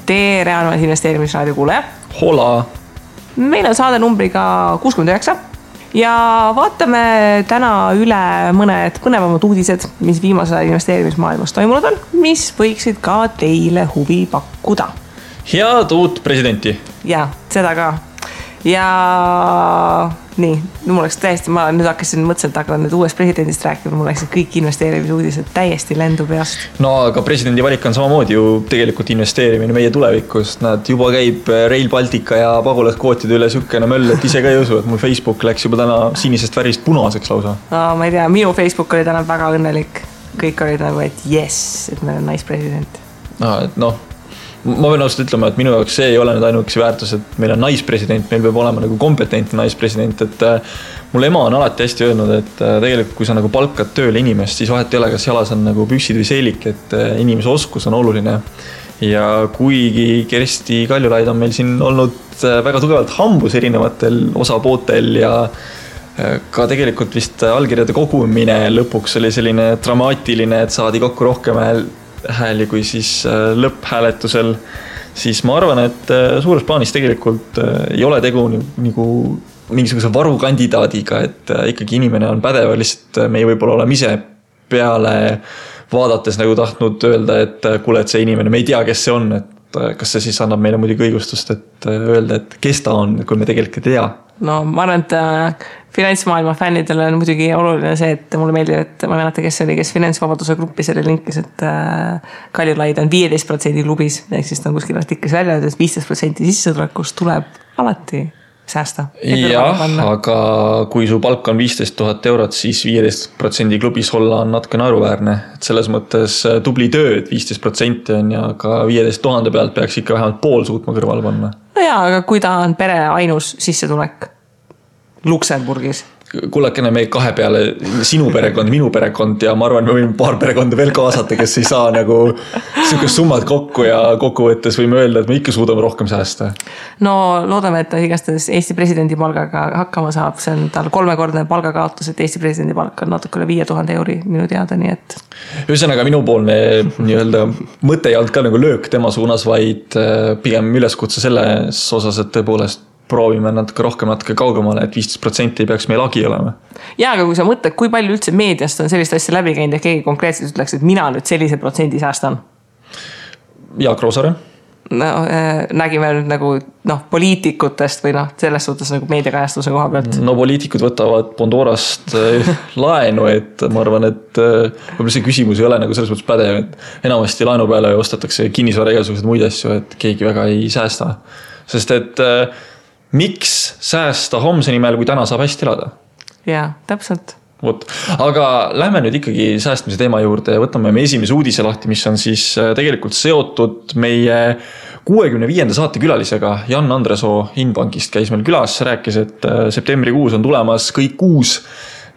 tere, armas investeerimisraadio kuulaja. Hola! Meil on saade numbriga 69 ja vaatame täna üle mõned põnevamad uudised, mis viimase investeerimismaailmas toimunud on, mis võiksid ka teile huvi pakkuda. Head uut presidenti! Ja, seda ka. Ja nii, mul oleks täiesti, ma nüüd hakkasin mõtlesin, et hakkan nüüd uuest presidendist rääkima, mul läksid kõik investeerimisuudised täiesti lendu peast. No aga presidendi valik on samamoodi ju tegelikult investeerimine meie tulevikust. Nad juba käib Rail Baltica ja pagulaskvootide üle sükene möll, et ise ka ei usu, et mul Facebook läks juba täna sinisest värist punaseks lausa. No, ma ei tea, minu Facebook oli täna väga õnnelik. Kõik olid nagu, et yes, et meil on naispresident. Ma võin ausalt ütlema, et minu jaoks see ei ole nüüd ainuüksi väärtus, et meil on naispresident, meil peab olema nagu kompetentne naispresident, et mul ema on alati hästi öelnud, et tegelikult kui sa nagu palkad tööle inimest, siis vahet ei ole, kas jalas on nagu püksid või seelik, et inimese oskus on oluline. Ja kuigi Kersti Kaljulaid on meil siin olnud väga tugevalt hambus erinevatel osapootel ja ka tegelikult vist allkirjade kogumine lõpuks oli selline dramaatiline, et saadi kokku rohkem hääli kui siis lõpphääletusel, siis ma arvan, et suures plaanis tegelikult ei ole tegu nagu mingisuguse varukandidaadiga, et ikkagi inimene on pädev, lihtsalt meie võib-olla oleme ise peale vaadates nagu tahtnud öelda, et kuule, et see inimene, me ei tea, kes see on, et kas see siis annab meile muidugi õigustust, et öelda, et kes ta on, kui me tegelikult ei tea. No ma arvan, et finantsmaailma fännidele on muidugi oluline see, et mulle meeldib, et ma meenata, kes oli, kes finantsvabaduse gruppi selle linkis, et Kaljulaid on 15% klubis, ehk siis ta on kuskil artiklis välja, et 15% sissetulekust tuleb alati säästa. Jah, aga kui su palk on 15 000 eurot, siis 15% klubis olla on natuke naeruväärne. Et selles mõttes tubli töö, et 15% on ja ka 15 000 pealt peaks ikka vähemalt pool suutma kõrval panna. No jaa, aga kui ta on pere ainus sissetulek Luksemburgis. Kullakene meie kahe peale sinu perekond, minu perekond ja ma arvan, me võime paar perekonda veel kaasata, kes ei saa nagu sihukest summad kokku ja kokkuvõttes võime öelda, et me ikka suudame rohkem säästa. No loodame, et ta igastahes Eesti presidendi palgaga hakkama saab. See on tal 3-kordne palgakaotus, et Eesti presidendi palk on natuke üle 5000 euri minu teada, nii et. Ühesõnaga minupoolne nii-öelda mõte ei olnud ka nagu löök tema suunas, vaid pigem üleskutse selles osas, et tõepoolest proovime natuke rohkem, natuke kaugemale, et 15% ei peaks meil agi olema. Jaa, aga kui sa mõtled, kui palju üldse meediast on sellist asja läbi käinud ja keegi konkreetselt ütleks, et mina nüüd sellise protsendi säästan? Jaak Roosaare? No, nägime nüüd nagu poliitikutest või selles suhtes nagu meediakajastuse koha pealt. No poliitikud võtavad Pandorast laenu, et ma arvan, et võib-olla see küsimus ei ole nagu selles mõttes pädev, et enamasti laenu peale ostetakse kinnisvara igasugused muid asju, et keegi väga ei säästa. Sest et miks säästa homse nimel, kui täna saab hästi elada? Jaa, täpselt. Aga lähme nüüd ikkagi säästmise teema juurde ja võtame me esimese uudise lahti, mis on siis tegelikult seotud meie 65. saate külalisega. Jan Andresoo Inbankist käis meil külas, rääkis, et septembrikuus on tulemas kõik uus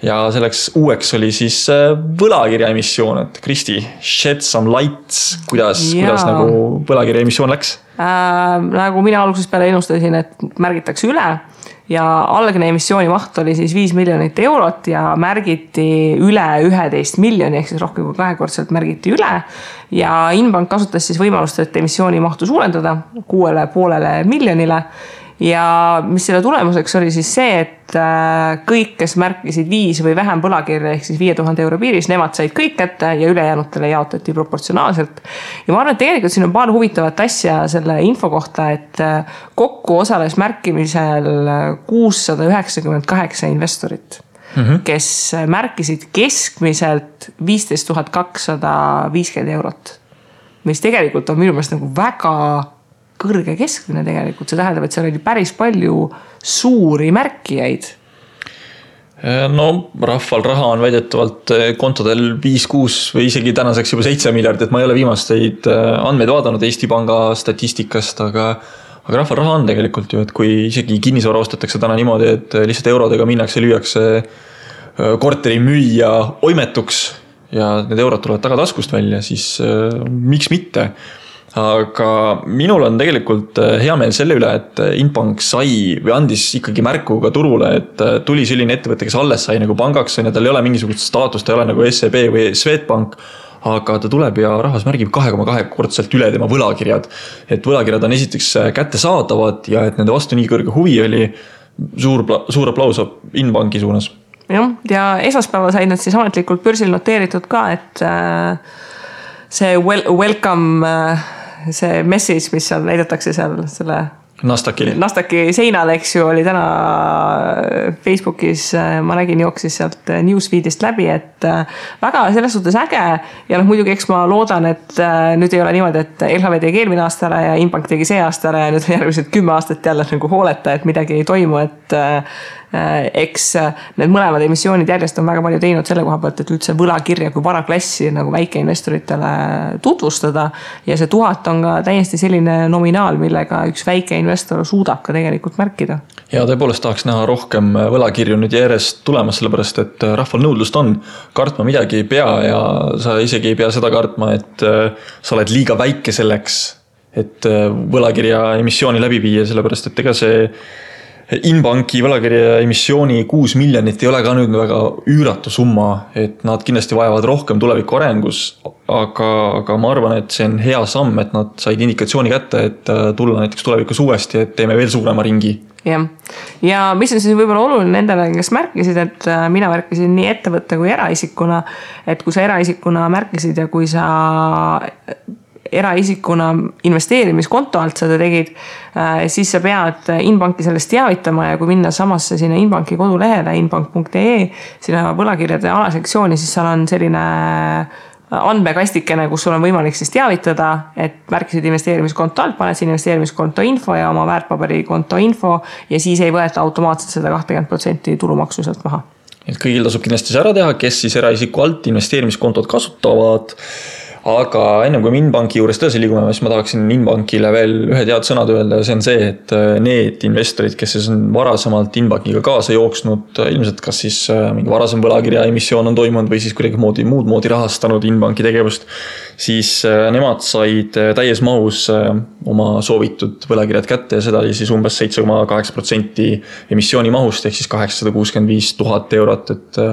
ja selleks uueks oli siis võlakirja emissioon, et Kristi, shed some lights, kuidas nagu võlakirja emissioon läks? Nagu mina alguses peale ennustasin, et märgitakse üle ja algne emissiooni maht oli siis 5 miljonit eurot ja märgiti üle 11 miljoni, ehk siis rohkem kui 2-kordselt märgiti üle ja Inbank kasutas siis võimalust, et emissiooni mahtu suurendada 6,5 miljonile ja mis selle tulemuseks oli siis see, et kõik, kes märkisid 5 või vähem põlakirja ehk siis 5000 euro piiris, nemad said kõik kätte ja ülejäänutele jaotati proportsionaalselt. Ja ma arvan, et tegelikult siin on paar huvitavat asja selle info kohta, et kokku osales märkimisel 698 investorit, kes märkisid keskmiselt 15 250 eurot, mis tegelikult on minu meelest nagu väga kõrge keskmine tegelikult. See tähendab, et seal oli päris palju suuri märkijaid. No rahval raha on väidetavalt kontodel 5-6 või isegi tänaseks juba 7 miljardit. Ma ei ole viimasteid andmeid vaadanud Eesti Panga statistikast, aga rahval raha on tegelikult ju, et kui isegi kinnisvara ostetakse täna niimoodi, et lihtsalt eurodega minnakse, lüüakse korteri müüja oimetuks ja need eurod tulevad tagataskust välja, siis miks mitte? Aga minul on tegelikult hea meel selle üle, et Inbank sai või andis ikkagi märku ka turule, et tuli selline ettevõte, kes alles sai nagu pangaks ja tal ei ole mingisugust staatust, ta ei ole nagu SEB või Swedbank, aga ta tuleb ja rahvas märgib 2,2-kordselt üle tema võlakirjad. Et võlakirjad on esiteks kättesaadavad ja et nende vastu nii kõrge huvi oli, suur aplaus Inbanki suunas. Ja esmaspäeval said nad siis ametlikult börsil noteeritud ka, et see welcome, see message, mis seal näidatakse seal selle Nasdaqi seinal, eks ju, oli täna Facebookis, ma nägin jooksis sealt newsfeedist läbi, et väga selles suhtes äge ja muidugi eks ma loodan, et nüüd ei ole niimoodi, et LHV tegi eelmine aasta ära ja Inbank tegi see aasta ära ja nüüd järgmised 10 aastat jälle nagu hooleta, et midagi ei toimu, et eks need mõlemad emissioonid järjest on väga palju teinud selle koha pealt, et üldse võlakirja kui varaklassi nagu väikeinvestoritele tutvustada ja see 1000 on ka täiesti selline nominaal, millega üks väike investor suudab ka tegelikult märkida. Ja tõepoolest tahaks näha rohkem võlakirju nüüd järjest tulemas, sellepärast et rahval nõudlust on, kartma midagi ei pea ja sa isegi ei pea seda kartma, et sa oled liiga väike selleks, et võlakirja emissiooni läbi viia, sellepärast et ega see Inbanki võlakirja emissiooni 6 miljonit ei ole ka nüüd väga üüratu summa, et nad kindlasti vajavad rohkem tuleviku arengus, aga ma arvan, et see on hea samm, et nad said indikatsiooni kätte, et tulla näiteks tulevikus uuesti, et teeme veel suurema ringi. Ja mis on siis võib-olla oluline nendele, kes märkisid, et mina märkisin nii ettevõtte kui eraisikuna, et kui sa eraisikuna märkisid ja kui sa eraisikuna investeerimiskonto alt seda tegid, siis sa pead Inbanki sellest teavitama ja kui minna samasse sinna Inbanki kodulehele inbank.ee, sinna võlakirjade alasektsiooni, siis seal on selline andmekastikene, kus sul on võimalik siis teavitada, et märkisid investeerimiskonto alt, paned siin investeerimiskonto info ja oma väärtpaberikonto info ja siis ei võeta automaatselt seda 20% tulumaksu sealt maha. Et kõigil tasub kindlasti see ära teha, kes siis eraisiku alt investeerimiskontot kasutavad. Aga ennem kui Inbanki juures tõsi liigume, siis ma tahaksin Inbankile veel ühe tead sõnad öelda ja see on see, et need investorid, kes siis on varasemalt Inbankiga kaasa jooksnud, ilmselt kas siis mingi varasem võlakirja emissioon on toimunud või siis kuidagi muud moodi rahastanud Inbanki tegevust, siis nemad said täies mahus oma soovitud võlakirjad kätte ja seda oli siis umbes 7,8% emissiooni mahust ehk siis 865 000 eurot, et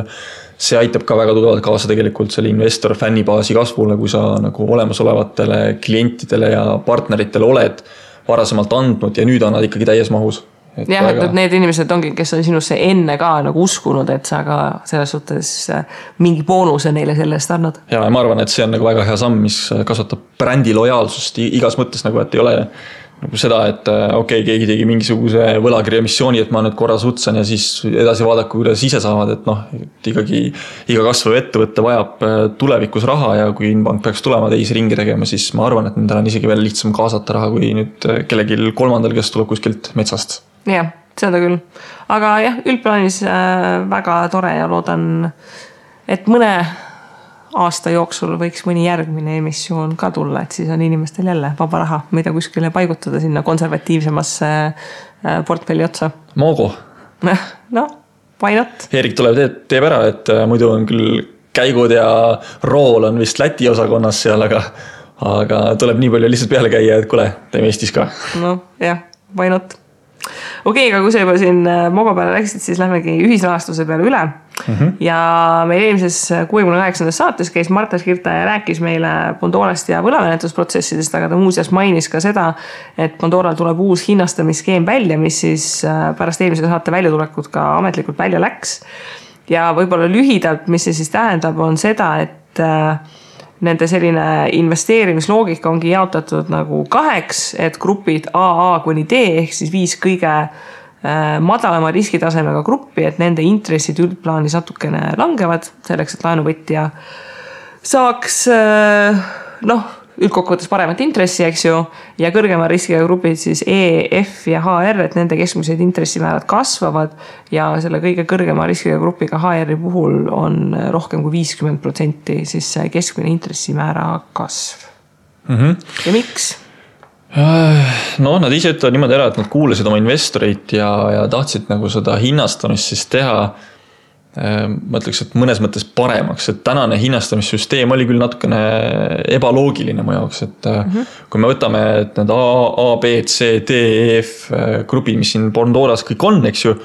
see aitab ka väga tugevalt kaasa tegelikult selle investor fännibaasi kasvule, kui sa nagu olemasolevatele klientidele ja partneritele oled varasemalt andnud ja nüüd on nad ikkagi täies mahus. Jah, et need inimesed ongi, kes on sinusse enne ka nagu uskunud, et sa ka selles suhtes mingi boonuse neile selle eest annad. Ja ma arvan, et see on nagu väga hea samm, mis kasvatab brändi lojaalsust igas mõttes nagu, et ei ole nagu seda, et keegi tegi mingisuguse võlakirja emissiooni, et ma nüüd korra sutsan ja siis edasi vaadaku, kuidas ise saavad, et ikkagi iga kasvav ettevõtte vajab tulevikus raha ja kui Inbank peaks tulema teisi ringi tegema, siis ma arvan, et nendel on isegi veel lihtsam kaasata raha kui nüüd kellegil kolmandal, kes tuleb kuskilt metsast. Jah, seda küll. Aga jah, üldplaanis väga tore ja loodan, et mõne aasta jooksul võiks mõni järgmine emissioon ka tulla, et siis on inimestel jälle vaba raha, mida kuskile paigutada sinna konservatiivsemasse portfelli otsa. Mogo. No, why not? Erik tuleb teeb ära, et muidu on küll käigud ja rool on vist Läti osakonnas seal, aga tuleb nii palju lihtsalt peale käia, et kule, teeme Eestis ka. No jah, why not? Okei, aga kui sa juba siin Mogo peale läksid, siis lähmegi ühisrahastuse peale üle. Ja meil eelmises 68. saates käis Marta Skirta ja rääkis meile Pandorast ja võlamenetusprotsessidest, aga ta muuseas mainis ka seda, et Pandoral tuleb uus hinnastamisskeem välja, mis siis pärast eelmise saate väljatulekut ka ametlikult välja läks. Ja võib-olla lühidalt, mis see siis tähendab, on seda, et nende selline investeerimisloogika ongi jaotatud nagu 2, et grupid AA kuni D ehk siis 5 kõige madalama riskitasemega gruppi, et nende intressid üldplaanis natukene langevad selleks, et laenuvõtja saaks üldkokkuvõttes paremat intressi, eks ju, ja kõrgema riskiga grupid siis E, F ja HR, et nende keskmised intressimäärad kasvavad ja selle kõige kõrgema riskiga grupiga HR-i puhul on rohkem kui 50% siis keskmine intressimäära kasv. Ja miks? No, nad ise ütlevad niimoodi ära, et nad kuulasid oma investoreid ja tahtsid nagu seda hinnastamist siis teha, ma ütleks, et mõnes mõttes paremaks, et tänane hinnastamissüsteem oli küll natukene ebaloogiline mu jaoks, et kui me võtame et need A, B, C, D, E, F grupid, mis siin Pandoras kõik on, eks ju,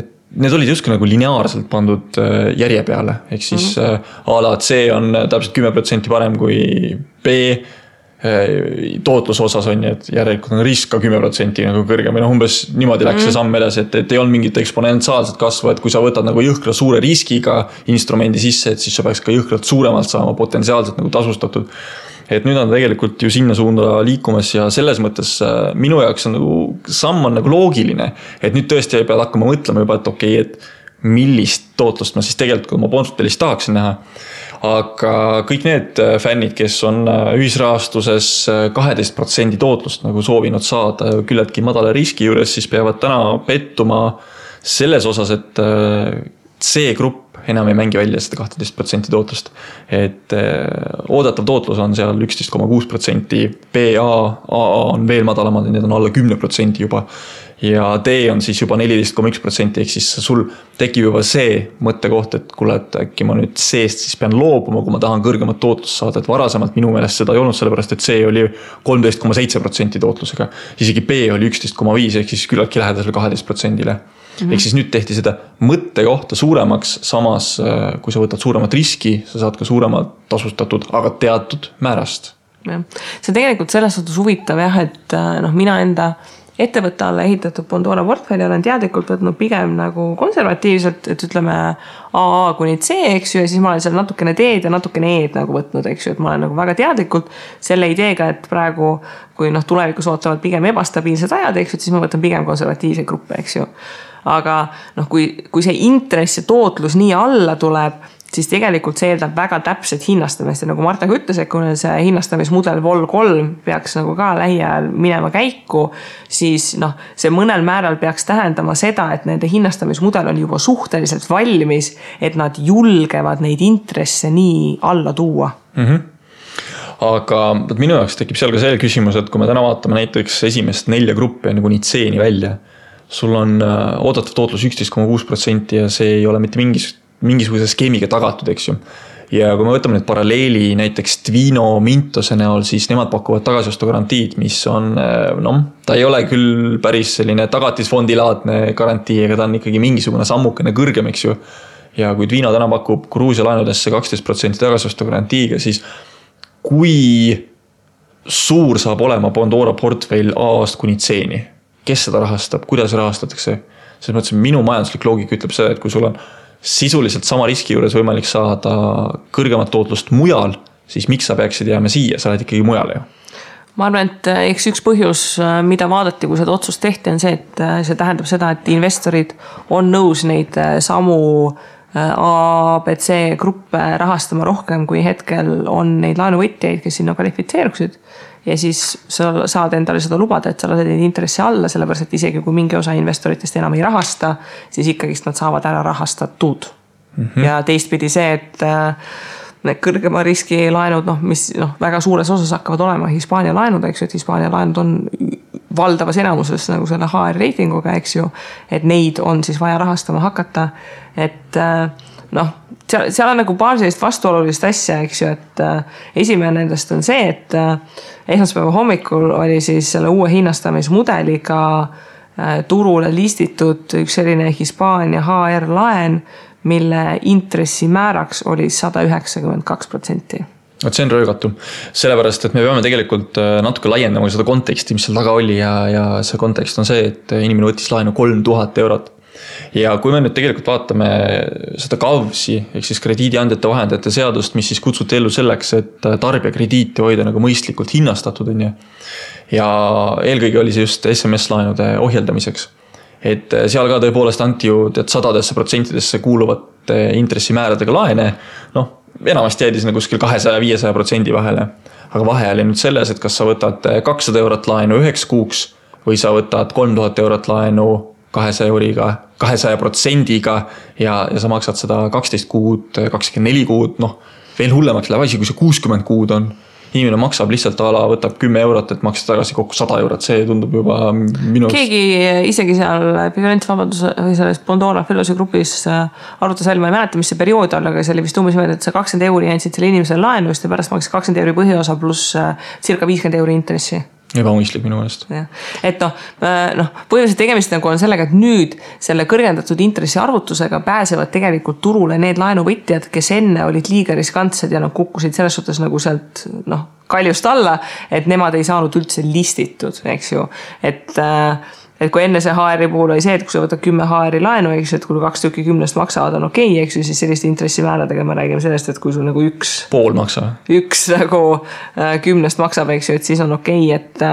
et need olid justkui nagu lineaarselt pandud järje peale, ehk siis a la C on täpselt 10% parem kui B tootluse osas on, et järelikult on risk ka 10% nagu kõrgem või umbes niimoodi läks see samm edasi, et ei olnud mingit eksponentsiaalset kasvu, et kui sa võtad nagu jõhkra suure riskiga instrumendi sisse, et siis sa peaks ka jõhkralt suuremalt saama potentsiaalselt nagu tasustatud. Et nüüd on tegelikult ju sinna suunda liikumas ja selles mõttes minu jaoks on nagu samm on nagu loogiline, et nüüd tõesti ei pea hakkama mõtlema juba, et okei, et millist tootlust ma siis tegelikult oma portfellis tahaksin näha. Aga kõik need fännid, kes on ühisrahastuses 12% tootlust nagu soovinud saada küllaltki madala riski juures, siis peavad täna pettuma selles osas, et C-grupp enam ei mängi välja seda 12% tootlust. Et oodatav tootlus on seal 11,6%, BA, AA on veel madalamad, need on alla 10% juba. Ja D on siis juba 14,1%, ehk siis sul tekib juba see mõttekoht, et kuule, et äkki ma nüüd C-st siis pean loobuma, kui ma tahan kõrgemat tootlust saada, et varasemalt minu meelest seda ei olnud, sellepärast et C oli 13,7% tootlusega, isegi B oli 11,5%, ehk siis küllaltki lähedasel 12%-le. Ehk siis nüüd tehti seda mõttekohta suuremaks, samas kui sa võtad suuremat riski, sa saad ka suuremalt tasustatud, aga teatud määrast. Ja. See tegelikult selles suhtes huvitav jah, et mina enda ettevõtte alla ehitatud Bondora portfelli olen teadlikult võtnud pigem nagu konservatiivselt, et ütleme AA kuni C, eks ju, ja siis ma olen seal natukene D-d ja natukene E-d nagu võtnud, eks ju, et ma olen nagu väga teadlikult selle ideega, et praegu, kui tulevikus ootavad pigem ebastabiilsed ajad, eks ju, siis ma võtan pigem konservatiivseid gruppe, eks ju. Aga kui see intress ja tootlus nii alla tuleb, siis tegelikult see eeldab väga täpset hinnastamist ja nagu Marta ka ütles, et kui see hinnastamismudel Vol 3 peaks nagu ka lähiajal minema käiku, siis see mõnel määral peaks tähendama seda, et nende hinnastamismudel on juba suhteliselt valmis, et nad julgevad neid intresse nii alla tuua. Aga minu jaoks tekib seal ka see küsimus, et kui me täna vaatame näiteks esimest 4 gruppi nagu nii C-ni välja, sul on oodatav tootlus 11,6% ja see ei ole mitte mingisuguse skeemiga tagatud, eks ju. Ja kui me võtame nüüd paralleeli näiteks Twino Mintose näol, siis nemad pakuvad tagasiostu garantiid, mis on, ta ei ole küll päris selline tagatisfondilaadne garantii, aga ta on ikkagi mingisugune sammukene kõrgem, eks ju. Ja kui Twino täna pakub Gruusia laenudesse 12% tagasiostu garantiiga, siis kui suur saab olema Bondora portfell A-ast kuni C-ni? Kes seda rahastab, kuidas rahastatakse? Selles mõttes minu majanduslik loogika ütleb seda, et kui sul on sisuliselt sama riski juures võimalik saada kõrgemat tootlust mujal, siis miks sa peaksid jääma siia, sa oled ikkagi mujal ju? Ma arvan, et eks üks põhjus, mida vaadati, kui seda otsust tehti, on see, et see tähendab seda, et investorid on nõus neid samu A, B, C gruppe rahastama rohkem, kui hetkel on neid laenuvõtjaid, kes sinna kvalifitseeruksid. Ja siis sa saad endale seda lubada, et sa lased neid intressi alla, sellepärast, et isegi kui mingi osa investoritest enam ei rahasta, siis ikkagist nad saavad ära rahastatud. Ja teistpidi see, et need kõrgema riski laenud, mis väga suures osas hakkavad olema Hispaania laenud, eks ju, et Hispaania laenud on valdavas enamuses nagu selle HR reitinguga, eks ju, et neid on siis vaja rahastama hakata, et seal on nagu paar sellist vastuolulist asja, eks ju, et esimene nendest on see, et esmaspäeva hommikul oli siis selle uue hinnastamismudeliga turule listitud üks selline Hispaania HR laen, mille intressimääraks oli 192%. See on röögatu, sellepärast, et me peame tegelikult natuke laiendama seda konteksti, mis seal taga oli ja see kontekst on see, et inimene võttis laenu 3000 eurot. Ja kui me nüüd tegelikult vaatame seda KAVSi, ehk siis krediidiandjate vahendajate seadust, mis siis kutsuti ellu selleks, et tarbija krediiti hoida nagu mõistlikult hinnastatud on. Ja eelkõige oli see just SMS-laenude ohjeldamiseks. Et seal ka tõepoolest anti ju 100% kuuluvate intressimääradega laene, enamasti jäidi sinna kuskil 200-500% vahele. Aga vahe oli nüüd selles, et kas sa võtad 200 eurot laenu 9 kuuks või sa võtad 3000 eurot laenu 200%-ga ja sa maksad seda 12 kuud, 24 kuud, veel hullemaks läheb asi, kui see 60 kuud on. Inimene maksab lihtsalt võtab 10 eurot, et maksta tagasi kokku 100 eurot, see tundub juba minu... Keegi isegi seal Finantsvabaduse või selles Bondora Fellosi grupis arutas välja, ma ei mäleta, mis see periood on, aga see oli vist umbes mõelda, et sa 20 euri jäänud selle inimesele laenu, ja pärast maksid 20 euri põhiosa pluss circa 50 euri intressi. ebamõistlik minu meelest. Et põhimõtteliselt tegemist nagu on sellega, et nüüd selle kõrgendatud intressi arvutusega pääsevad tegelikult turule need laenuvõtjad, kes enne olid liiga riskantsed ja kukkusid selles suhtes nagu sealt kaljust alla, et nemad ei saanud üldse listitud, eks ju. Et kui enne see HR-i puhul oli see, et kui sa võtad 10 HR-i laenu, eks ju, et kui 2 tükki 10 maksavad on okei, eks ju, siis selliste intressimääradega me räägime sellest, et kui sul nagu pool maksab. Üks nagu 10 maksab, eks ju, et siis on okei, et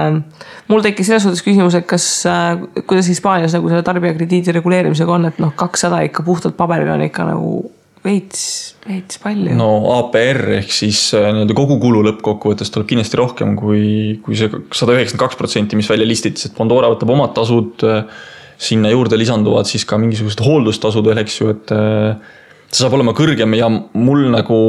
mul tekkis selles suhtes küsimus, et kuidas Hispaanias nagu selle tarbijakrediidi reguleerimisega on, et 200 ikka puhtalt paberil on ikka nagu veits palju. No APR ehk siis kogu kulu lõppkokkuvõttes tuleb kindlasti rohkem kui see 192%, mis välja listitis, et Pandora võtab omad tasud, sinna juurde lisanduvad siis ka mingisugused hooldustasud veel, eks ju, et see saab olema kõrgem ja mul nagu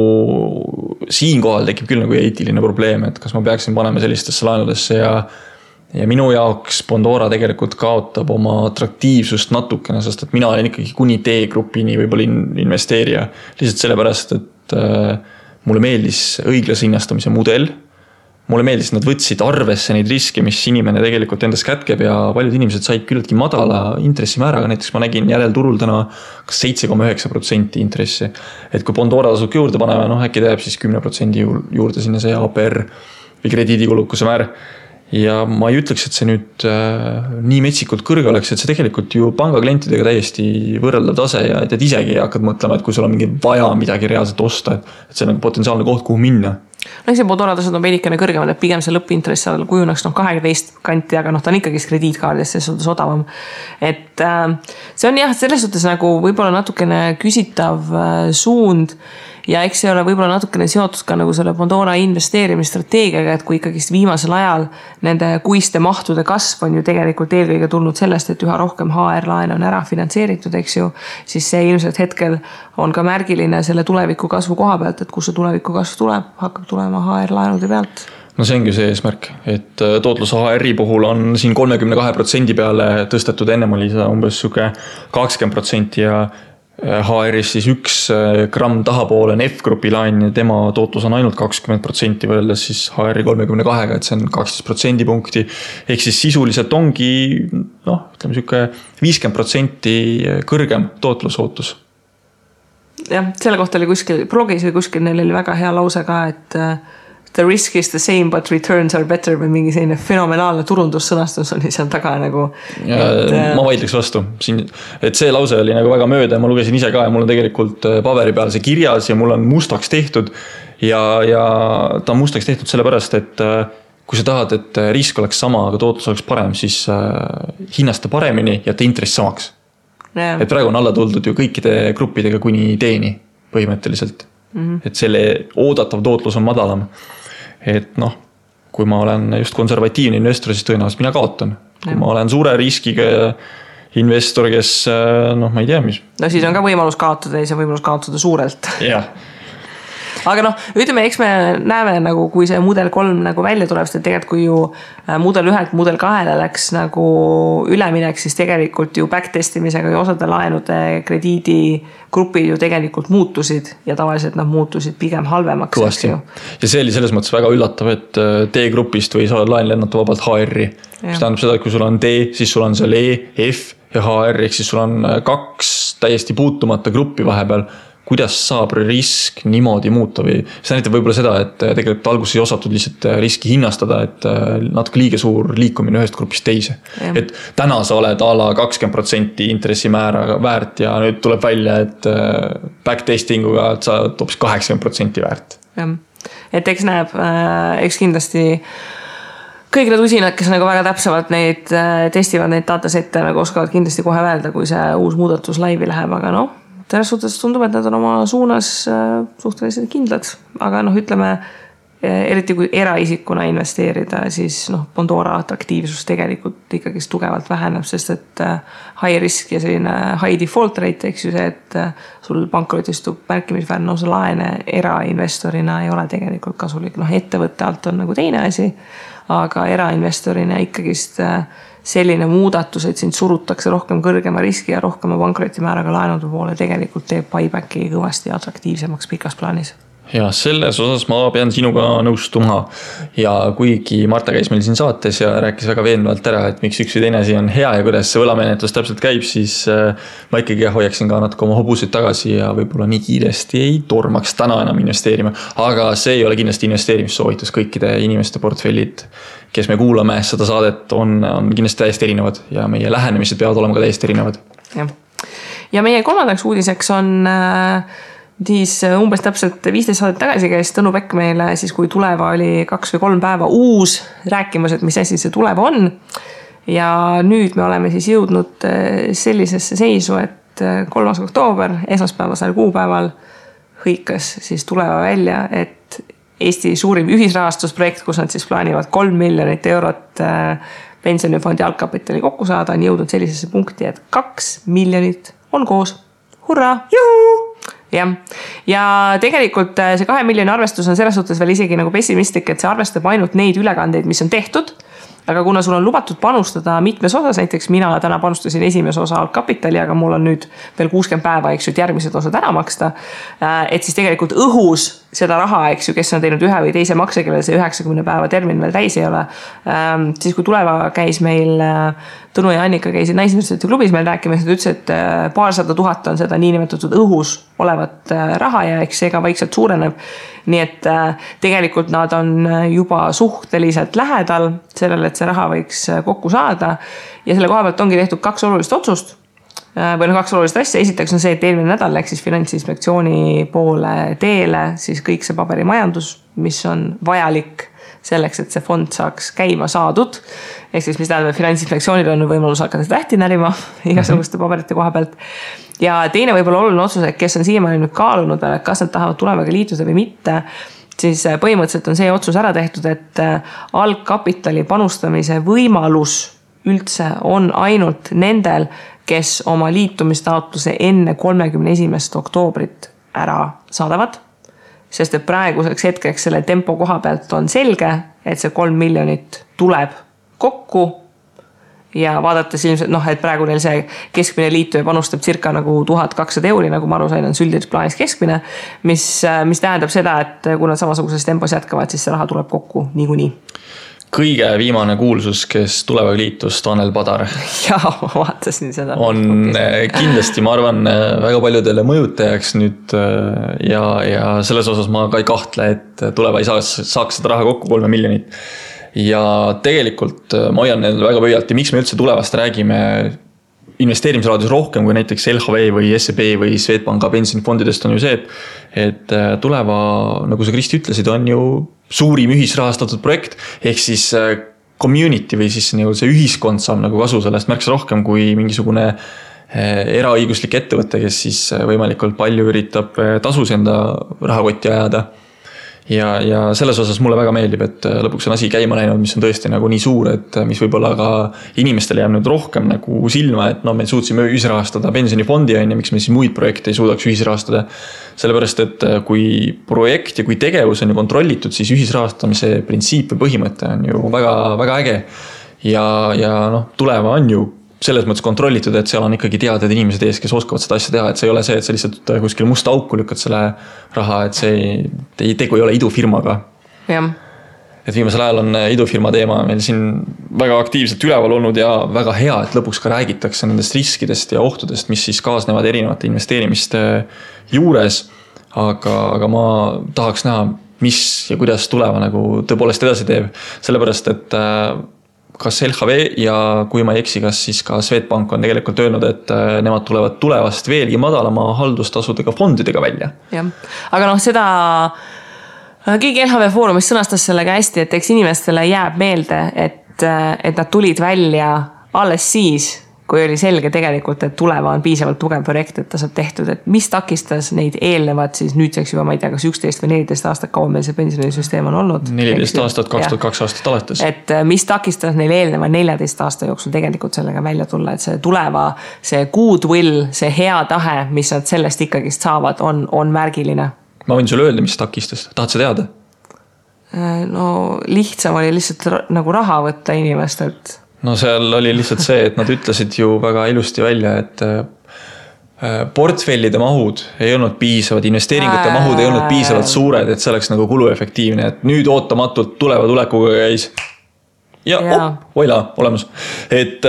siinkohal tekib küll nagu eetiline probleem, et kas ma peaksin panema sellistesse laenudesse ja minu jaoks Pandora tegelikult kaotab oma atraktiivsust natukene, sest et mina olen ikkagi kuni D-grupini võib-olla investeerija. Lihtsalt sellepärast, et mulle meeldis õiglase hinnastamise mudel. Mulle meeldis, nad võtsid arvesse neid riske, mis inimene tegelikult endas kätkeb ja paljud inimesed said küllaltki madala intressimääraga. Näiteks ma nägin järelturul täna 7,9% intressi. Et kui Pandora tasub juurde paneme, äkki teeb siis 10% juurde sinna see APR või krediidikulukuse määr. Ja ma ei ütleks, et see nüüd nii metsikult kõrge oleks, et see tegelikult ju pangaklientidega täiesti võrreldav tase ja et isegi hakkad mõtlema, et kui sul on mingi vaja midagi reaalselt osta, et see on nagu potentsiaalne koht, kuhu minna. See Pandora tasud on veidikene kõrgemad, et pigem see lõppintress kujuneks 12 kanti, aga ta on ikkagi krediitkaardis, see suhtes odavam. Et see on jah, selles suhtes nagu võib-olla natukene küsitav suund ja eks see ole võib-olla natukene seotud ka nagu selle Pandora investeerimisstrateegiaga, et kui ikkagi viimasel ajal nende kuiste mahtude kasv on ju tegelikult eelkõige tulnud sellest, et üha rohkem HR-laene on ära finantseeritud, eks ju, siis see ilmselt hetkel on ka märgiline selle tuleviku kasvu koha pealt, et kus see tuleviku kasv tuleb, hakkab tulema HR-laenude pealt. No see ongi see eesmärk, et tootlus HR-i puhul on siin 32% peale tõstetud, ennem oli seda umbes 20% ja HR-is siis 1 gramm tahapoole on F-grupi laen ja tema tootlus on ainult 20% võrreldes siis HR-i 32-ga, et see on 12% punkti. Ehk siis sisuliselt ongi, ütleme 50% kõrgem tootlusootus. Jah, selle kohta oli kuskil, blogis või kuskil neil oli väga hea lause ka, et the risk is the same but returns are better või mingi selline fenomenaalne turundussõnastus oli seal taga nagu. Ma vaidleks vastu. Et see lause oli nagu väga mööda ja ma lugesin ise ka ja mul on tegelikult paberi peal see kirjas ja mul on mustaks tehtud ja ta on mustaks tehtud sellepärast, et kui sa tahad, et risk oleks sama, aga tootlus oleks parem, siis hinnasta paremini ja ta intress samaks. Et praegu on alla tuldud ju kõikide gruppidega kuni teeni põhimõtteliselt. Et selle oodatav tootlus on madalam. Et kui ma olen just konservatiivne investor, siis tõenäoliselt mina kaotan. Kui ma olen suure riskiga investor, kes ma ei tea, mis. No siis on ka võimalus kaotada ja see võimalus kaotada suurelt. Jah. Aga ütleme, eks me näeme nagu, kui see mudel 3 nagu välja tuleb, sest tegelikult kui ju mudel 1-lt mudel 2-le läks nagu üleminek, siis tegelikult ju backtestimisega ja osade laenude krediidigrupid ju tegelikult muutusid ja tavaliselt nad muutusid pigem halvemaks. Kõvasti. Ja see oli selles mõttes väga üllatav, et D-grupist või sa laen lennata vabalt HR-i. Mis tähendab seda, et kui sul on D, siis sul on seal E, F ja HR, ehk siis sul on 2 täiesti puutumata gruppi vahepeal. Kuidas saab risk niimoodi muuta või see näitab võib-olla seda, et tegelikult alguses ei osatud lihtsalt riski hinnastada, et natuke liiga suur liikumine ühest grupist teise. Ja. Et täna sa oled a la 20% intressimäära väärt ja nüüd tuleb välja, et backtestinguga sa toobis 80% väärt. Ja. Et eks näeb, eks kindlasti kõik need usinad, kes nagu väga täpsemalt neid testivad neid datasette, nagu oskavad kindlasti kohe öelda, kui see uus muudatus laivi läheb, aga selles suhtes tundub, et nad on oma suunas suhteliselt kindlad, aga ütleme, eriti kui eraisikuna investeerida, siis Pandora atraktiivsus tegelikult ikkagi tugevalt väheneb, sest et high risk ja selline high default rate, eks ju see, et sul pankrotistub märkimisväärne osa laene erainvestorina ei ole tegelikult kasulik. Ettevõtte alt on nagu teine asi, aga erainvestorina ikkagist selline muudatus, et sind surutakse rohkem kõrgema riski ja rohkema pankrotimääraga laenude poole tegelikult teeb buybacki kõvasti atraktiivsemaks pikas plaanis. Ja selles osas ma pean sinuga nõustuma ja kuigi Marta käis meil siin saates ja rääkis väga veenvalt ära, et miks üks või teine asi on hea ja kuidas see võlamenetlus täpselt käib, siis ma ikkagi hoiaksin ka natuke oma hobusid tagasi ja võib-olla nii kiiresti ei tormaks täna enam investeerima. Aga see ei ole kindlasti investeerimissoovitus, kõikide inimeste portfellid, kes me kuulame seda saadet, on kindlasti täiesti erinevad ja meie lähenemised peavad olema ka täiesti erinevad. Ja meie kolmandaks uudiseks on siis umbes täpselt 15 saadet tagasi käis Tõnu Pekk meile siis, kui Tuleva oli 2 või 3 päeva uus rääkimas, et mis asi see Tuleva on. Ja nüüd me oleme siis jõudnud sellisesse seisu, et 3. oktoober, esmaspäevasel kuupäeval hõikas siis Tuleva välja, et Eesti suurim ühisrahastusprojekt, kus nad siis plaanivad 3 miljonit eurot pensionifondi algkapitali kokku saada, on jõudnud sellisesse punkti, et 2 miljonit on koos. Hurraa! Juhu! Ja tegelikult see 2 miljoni arvestus on selles suhtes veel isegi nagu pessimistlik, et see arvestab ainult neid ülekandeid, mis on tehtud. Aga kuna sul on lubatud panustada mitmes osas, näiteks mina täna panustasin esimese osa algkapitali, aga mul on nüüd veel 60 päeva, eks ju, et järgmised osad ära maksta. Et siis tegelikult õhus seda raha, eks ju, kes on teinud ühe või teise makse, kellel see 90 päeva termin veel täis ei ole. Siis kui Tuleva käis meil, Tõnu ja Annika käisid Naisuniversiteedi klubis meil rääkimas, nad ütles, et 200 000 on seda niinimetatud õhus olevat raha ja eks see ka vaikselt suureneb. Nii et tegelikult nad on juba suhteliselt lähedal sellele, et see raha võiks kokku saada. Ja selle koha pealt ongi tehtud 2 olulist otsust. Või 2 olulist asja. Esiteks on see, et eelmine nädal läks siis Finantsinspektsiooni poole teele siis kõik see paberimajandus, mis on vajalik selleks, et see fond saaks käima saadud. Ehk siis, mis tähendab, Finantsinspektsioonil on võimalus hakata tähti närima igasuguste paberite koha pealt. Ja teine võib-olla oluline otsus, et kes on siiamaani nüüd kaalunud, kas nad tahavad Tulevaga liituda või mitte, siis põhimõtteliselt on see otsus ära tehtud, et algkapitali panustamise võimalus üldse on ainult nendel, kes oma liitumistaotluse enne 31. oktoobrit ära saadavad. Sest et praeguseks hetkeks selle tempo koha pealt on selge, et see 3 miljonit tuleb kokku ja vaadates ilmselt, et praegu neil see keskmine liituja panustab circa nagu 1200 euri, nagu ma aru sain, on süldides plaanis keskmine, mis tähendab seda, et kui nad samasuguses tempos jätkavad, siis see raha tuleb kokku niikuinii. Kõige viimane kuulsus, kes Tulevaga liitus, Tanel Padar. Jaa, ma vaatasin seda. On kindlasti, ma arvan, väga paljudele mõjutajaks nüüd ja selles osas ma ka ei kahtle, et Tuleva ei saaks seda raha kokku 3 miljonit. Ja tegelikult ma hoian neil väga pöialt ja miks me üldse Tulevast räägime investeerimisraadios rohkem kui näiteks LHV või SEB või Swedbanka pensionifondidest on ju see, et Tuleva, nagu sa Kristi ütlesid, on ju suurim ühisrahastatud projekt, ehk siis community või siis see ühiskond saab nagu kasu sellest märksa rohkem kui mingisugune eraõiguslik ettevõte, kes siis võimalikult palju üritab tasus enda rahakotti ajada. Ja selles osas mulle väga meeldib, et lõpuks on asi käima läinud, mis on tõesti nagu nii suur, et mis võib-olla ka inimestele jääb nüüd rohkem nagu silma, et me suutsime ühisrahastada pensionifondi ja miks me siis muid projekte ei suudaks ühisrahastada. Sellepärast, et kui projekt ja kui tegevus on ju kontrollitud, siis ühisrahastamise printsiip või põhimõte on ju väga, väga äge. Ja Tuleva on ju selles mõttes kontrollitud, et seal on ikkagi teadjad inimesed ees, kes oskavad seda asja teha, et see ei ole see, et sa lihtsalt kuskil musta auku lükkad selle raha, et see tegu ei ole idufirmaga. Jah. Et viimasel ajal on idufirma teema meil siin väga aktiivselt üleval olnud ja väga hea, et lõpuks ka räägitakse nendest riskidest ja ohtudest, mis siis kaasnevad erinevate investeerimiste juures. Aga ma tahaks näha, mis ja kuidas Tuleva nagu tõepoolest edasi teeb. Sellepärast, et kas LHV ja kui ma ei eksi, kas siis ka Swedbank on tegelikult öelnud, et nemad tulevad Tulevast veelgi madalama haldustasudega fondidega välja. Ja. Aga seda keegi LHV Foorumis sõnastas sellega hästi, et eks inimestele jääb meelde, et nad tulid välja alles siis, kui oli selge tegelikult, et Tuleva on piisavalt tugev projekt, et ta saab tehtud, et mis takistas neid eelnevad siis nüüdseks juba, ma ei tea, kas 11 või 14 aastat kauem meil see pensionisüsteem on olnud. 14 aastat, 2002 aastat alates. Et mis takistas neil eelneva 14 aasta jooksul tegelikult sellega välja tulla, et see Tuleva, see goodwill, see hea tahe, mis nad sellest ikkagist saavad, on märgiline. Ma võin sulle öelda, mis takistas. Tahad sa teada? Lihtsam oli lihtsalt nagu raha võtta inimestelt. Seal oli lihtsalt see, et nad ütlesid ju väga ilusti välja, et portfellide mahud ei olnud piisavad, investeeringute mahud ei olnud piisavalt suured, et see oleks nagu kuluefektiivne, et nüüd ootamatult tuleva tulekuga käis ja voila, olemas. Et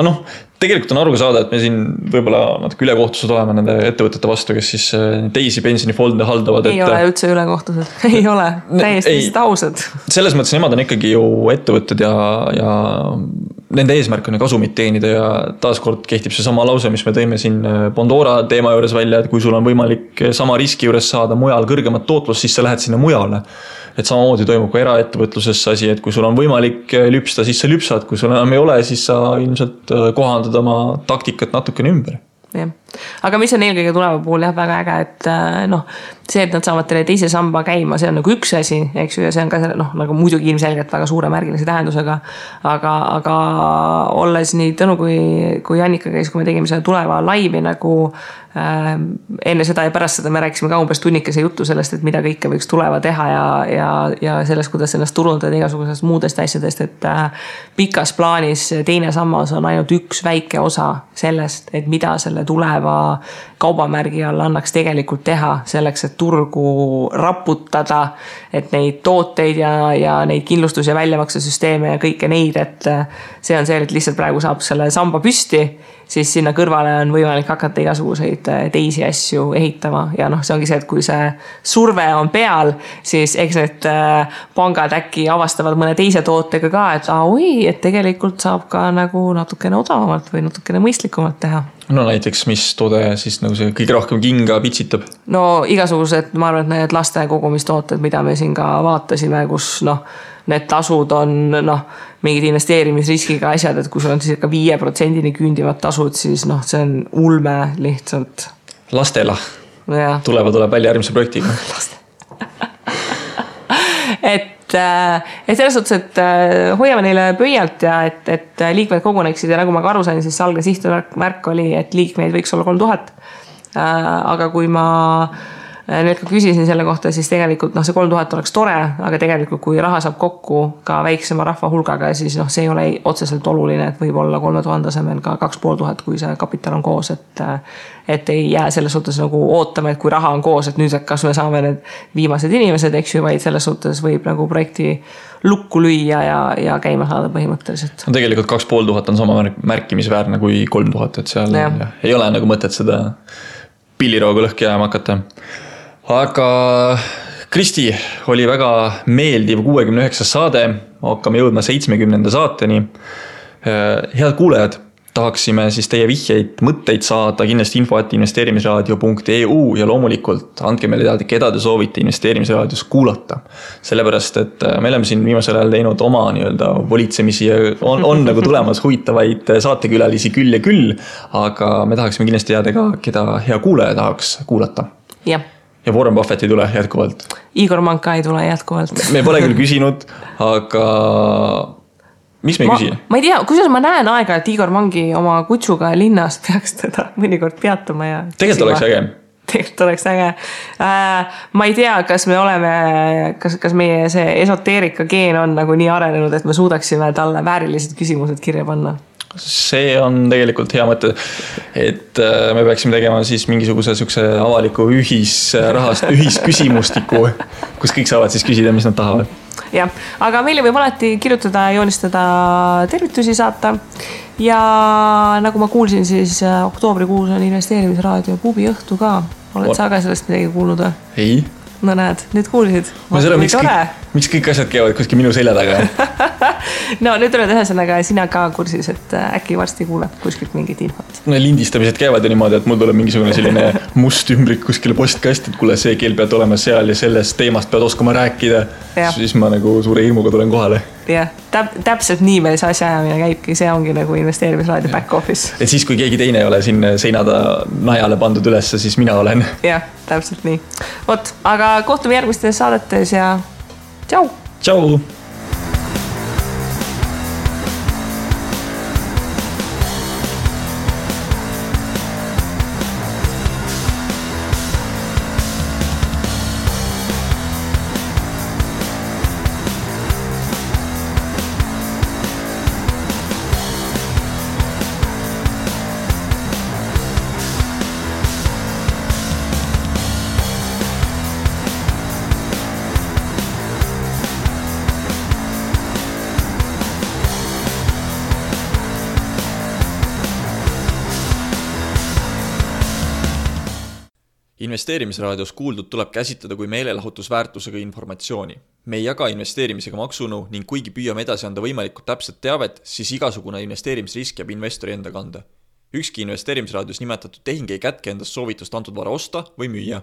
noh, tegelikult on aru ka saada, et me siin võib-olla natuke ülekohtused oleme nende ettevõtete vastu, kes siis teisi pensionifonde haldavad. Ei ole üldse ülekohtused, ei ole, täiesti ausad. Selles mõttes nemad on ikkagi ju ettevõtted ja nende eesmärk on kasumit teenida ja taaskord kehtib see sama lause, mis me tõime siin Bondora teema juures välja, et kui sul on võimalik sama riski juures saada mujal kõrgemat tootlust, siis sa lähed sinna mujale. Et samamoodi toimub ka eraettevõtluses asi, et kui sul on võimalik lüpsta, siis sa lüpsad, kui sul enam ei ole, siis sa ilmselt kohandad oma taktikat natukene ümber. Ja. Aga mis on eelkõige tuleva puhul väga äge, et noh, see, et nad saavad teile teise samba käima, see on nagu üks asi, eks ju, ja see on ka nagu muidugi ilmselgelt väga suure märgilise tähendusega, aga olles nii Tõnu kui Jannika käis, kui me tegime selle tuleva laivi nagu enne seda ja pärast seda me rääkisime ka umbes tunnikese juttu sellest, et mida kõike võiks tuleva teha ja sellest, kuidas ennast turundada igasugusest muudest asjadest, et pikas plaanis teine sammas on ainult üks väike osa sellest, et mida selle tuleva kaubamärgi all annaks tegelikult teha selleks, et turgu raputada, et neid tooteid ja neid kindlustus- ja väljamaksesüsteeme ja kõike neid, et see on see, et lihtsalt praegu saab selle samba püsti, siis sinna kõrvale on võimalik hakata igasuguseid teisi asju ehitama ja noh, see ongi see, et kui see surve on peal, siis eks need pangad äkki avastavad mõne teise tootega ka, et et tegelikult saab ka nagu natukene odavamalt või natukene mõistlikumalt teha. No näiteks, mis toode siis nagu see kõige rohkem kinga pitsitab? No igasugused, ma arvan, et need laste kogumistooted, mida me siin ka vaatasime, kus noh, need tasud on mingid investeerimisriskiga asjad, et kui sul on siis ka 5% küündivad tasud, siis noh, see on ulme lihtsalt. Lastela. Tuleb välja järgmise projektiga. et selles suhtes, et hoiame neile pöialt ja et liikmed koguneksid ja nagu ma ka aru sain, siis algne sihtmärk oli, et liikmeid võiks olla 3000. Aga kui ma nüüd ka küsisin selle kohta, siis tegelikult see 3000 oleks tore, aga tegelikult kui raha saab kokku ka väiksema rahva hulgaga, siis see ei ole otseselt oluline, et võib olla 3000 asemel ka 2500, kui see kapital on koos, et ei jää selles suhtes nagu ootama, et kui raha on koos, et nüüd kas me saame need viimased inimesed, eks ju, vaid selles suhtes võib nagu projekti lukku lüüa ja käima saada põhimõtteliselt. Tegelikult 2500 on sama märkimisväärne kui 3000, et seal ei ole nagu mõtet seda pillirooga lõhki jääma hakata. Aga Kristi, oli väga meeldiv 69 saade, hakkame jõudma 70. saateni. Head kuulajad, tahaksime siis teie vihjeid, mõtteid saada kindlasti info@investeerimisraadio.eu ja loomulikult andke meile teada, keda te soovite investeerimisraadios kuulata. Sellepärast, et me oleme siin viimasel ajal teinud oma volitsemisi ja on nagu tulemas huvitavaid saatekülalisi küll ja küll, aga me tahaksime kindlasti teada ka, keda hea kuulaja tahaks kuulata. Jah. Ja Warren Buffett ei tule jätkuvalt. Igor Manka ei tule jätkuvalt. Me pole küll küsinud, aga mis me ei küsi? Ma ei tea, kusjuures ma näen aega, et Igor Mangi oma kutsuga linnas peaks teda mõnikord peatuma ja tegelikult oleks äge. Tegelikult oleks äge. Ma ei tea, kas me oleme, kas meie see esoteerika geen on nagu nii arenenud, et me suudaksime talle väärilised küsimused kirja panna. See on tegelikult hea mõte, et me peaksime tegema siis mingisuguse avaliku ühisküsimustiku, kus kõik saavad siis küsida, mis nad tahavad. Jah, aga meile võib alati kirjutada, joonistada, tervitusi saata ja nagu ma kuulsin, siis oktoobrikuus on investeerimisraadio pubi õhtu ka. Oled sa ka sellest midagi kuulnud või? Ei. No näed, nüüd kuulsid. Ma seda, miks kõik asjad käivad kuskil minu selja taga? No nüüd oled ühesõnaga sina ka kursis, et äkki varsti kuuleb kuskilt mingit infot. No lindistamised käivad ju niimoodi, et mul tuleb mingisugune selline must ümbrik kuskile postkast, et kuule, see keel pead olema seal ja sellest teemast pead oskama rääkida. Siis ma nagu suure hirmuga tulen kohale. Jah, täpselt nii meil see asjaajamine käibki, see ongi nagu investeerimisraadio back office. Et siis, kui keegi teine ei ole siin seinada najale pandud ülesse, siis mina olen. Jah, täpselt nii. Vot, aga kohtume järgmistes saadetes ja tšau! Tšau! Investeerimisraadios kuuldud tuleb käsitleda kui meelelahutusväärtusega informatsiooni. Me ei jaga investeerimisega maksunu ning kuigi püüame edasi anda võimalikult täpset teavet, siis igasugune investeerimisrisk jääb investori enda kanda. Ükski investeerimisraadios nimetatud tehing ei kätke endast soovitust antud vara osta või müüa.